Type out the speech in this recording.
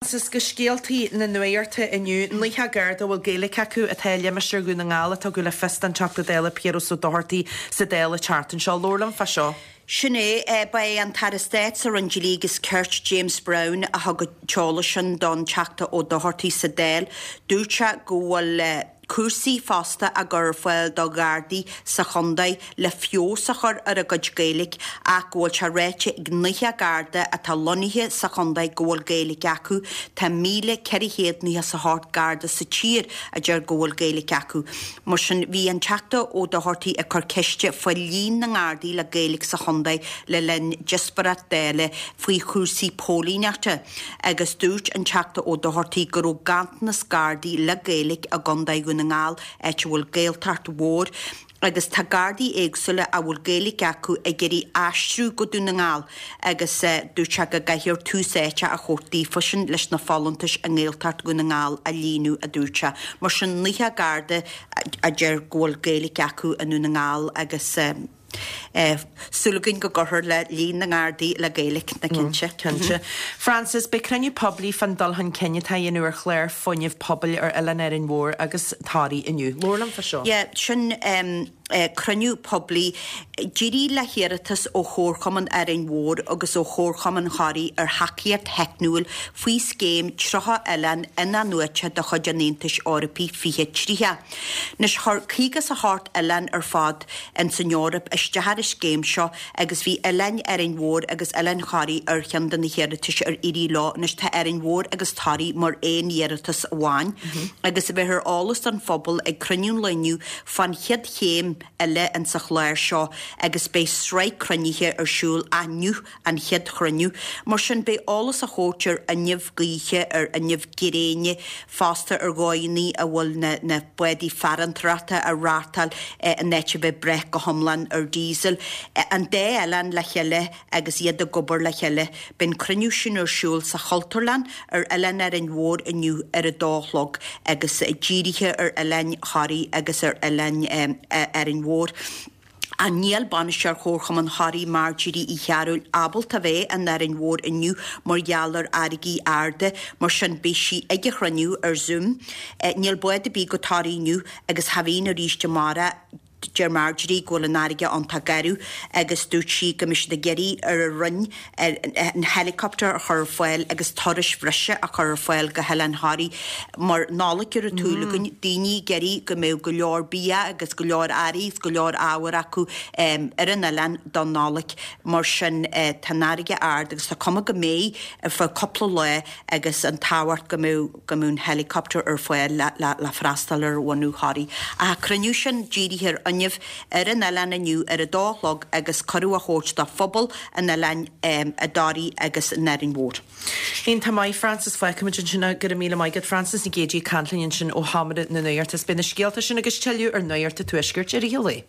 Is go scéaltaí na nuachta inniu, 90 Garda a bhfuil Gaeilge acu atá i limistéar Dhún na nGall a tugadh le fios don Teachta Dála Piaras Ó Dochartaigh sa Dáil an tseachtain seo. Labhair liom fá seo. Sin é. Ba é an tAire Stáit sa Roinn Dlí agus Cirt, James Browne, a thug an t-eolas sin don Teachta Ó Dochartaigh sa Dáil. Dúirt sé go bhfuil cúrsaí fosta á gcur ar fáil do Ghardaí sa chontae le feabhas a chur ar a gcuid Gaeilge ach go bhfuil sé ráite ag 90 Garda atá lonnaithe sa chontae go bhfuil Gaeilge acu. Tá 1,498 Garda sa tír a deir go bhfuil Gaeilge acu. Mar sin, bhí an Teachta Ó Dochartaigh ag cur ceiste faoi líon na nGardaí le Gaeilge sa chontae le linn díospóireacht Dála faoi chúrsaí póilíneachta. agus dúirt an Teachta Ó Dochartaigh go raibh ganntanas Gardaí le Gaeilge i gContae Dhún na nGall, áit a bhfuil Gaeltacht mhór, agus tá Gardaí éagsúla a bhfuil Gaeilge acu ag iarraidh aistriú go Dún na nGall agus dúirt sé go gcaithfear tús áite a thabhairt daofa sin leis na folúntais i nGaeltacht Dhún na nGall a líonadh, a dúirt sé. Mar sin, 90 Garda a deir go bhfuil Gaeilge acu i nDún na nGall agus. Súil againn go gcuirfear le líon na nGardaí le Gaeilge, ná cinnte. Cinnte. Frances, beidh cruinniú poiblí fán dul chun cinn atá á dhéanamh ar chlár fuinnimh pobail ar Oileán Árainn Mhór agus Thoraí inniu. Labhair liom fá seo. Yeah, sin cruinniú poiblí. Dírithe le hiarratas ó Chomharchumann Árainn Mhór agus ó Chomharchumann Thoraí ar thacaíocht theicniúil faoi Scéim 30 Oileán In-athnuaite de chuid an Aontais Eorpaigh 2030. Anois, chuir 58 oileán ar fad ins an Eoraip isteach ar an scéim seo agus bhí Oileáin Árainn Mhór agus Oileán Thoraí ar cheann de na hiarratais ar éirigh leo. Anois tá Árainn Mhór agus Toraigh mar aon iarratas amháin agus beifear eolas don phobal ag cruinniú an lae inniu fán chéad chéim eile ins an chlár seo agus beidh sraith cruinnithe ar siúl inniu an chéad chruinniú. Mar sin, beidh eolas á thabhairt ar fhuinneamh gaoithe, ar fhuinneamh gréine, fosta ar dhóigheanna a bhfuil na na bádaí farantóireachta á reáchtáil in áit a bheith ag brath go hiomlán ar diesel. An dá oileán le chéile agus iad ag obair le chéile. Beidh an cruinniú sin ar siúl sa Chultúrlann ar Oileán Árainn Mhór inniu ar a dó a chlog agus dírithe ar Oileán Thoraí agus ar Oileán Árainn Mhór. Ach níl bainisteoir Chomharchumann Thoraí Marjorie Uí Chearúil ábalta a bheith in Árainn Mhór inniu mar gheall ar fharraigí arda, mar sin beidh sí ag an chruinniú ar Zoom. Níl bád ar bith go Toraigh inniu agus cha bhíonn arís amárach. Deir Marjorie go bhfuil an fharraige iontach garbh agus dúirt sí go mbeidh siad ag iarraidh ar an Roinn an helicopter a chur ar fáil agus turais bhreise a chur ar fáil go hOileán Thoraí mar Nollaig ar an tsúil againn, daoine ag iarraidh go mbeadh go leor bia agus go leor earraí agus go leor ábhar acu ar an oileán don Nollaig. Mar sin tá an fharraige ard agus tá cuma go mbeidh ar feadh cúpla lá agus an tábhacht go mbeadh go mbeadh an helicopter ar fáil le freastal ar bhunadh Thoraí. Ach an cruinniú sin dírithe ar fhuinneamh ar an oileán inniu ar a dó a chlog agus cuireadh á thabhairt do phobal an oileáin i dToraí agus in Árainn Mhór. Iontach maith, Frances. Fágfaimid ansin é. Go raibh míle maith agat, Frances Nic Géadaigh ag caint linn ansin ó Sheomra na Nuachta. Is beidh na scéalta sin agus tuilleadh ar Nuacht an Tuaiscirt i rith an lae.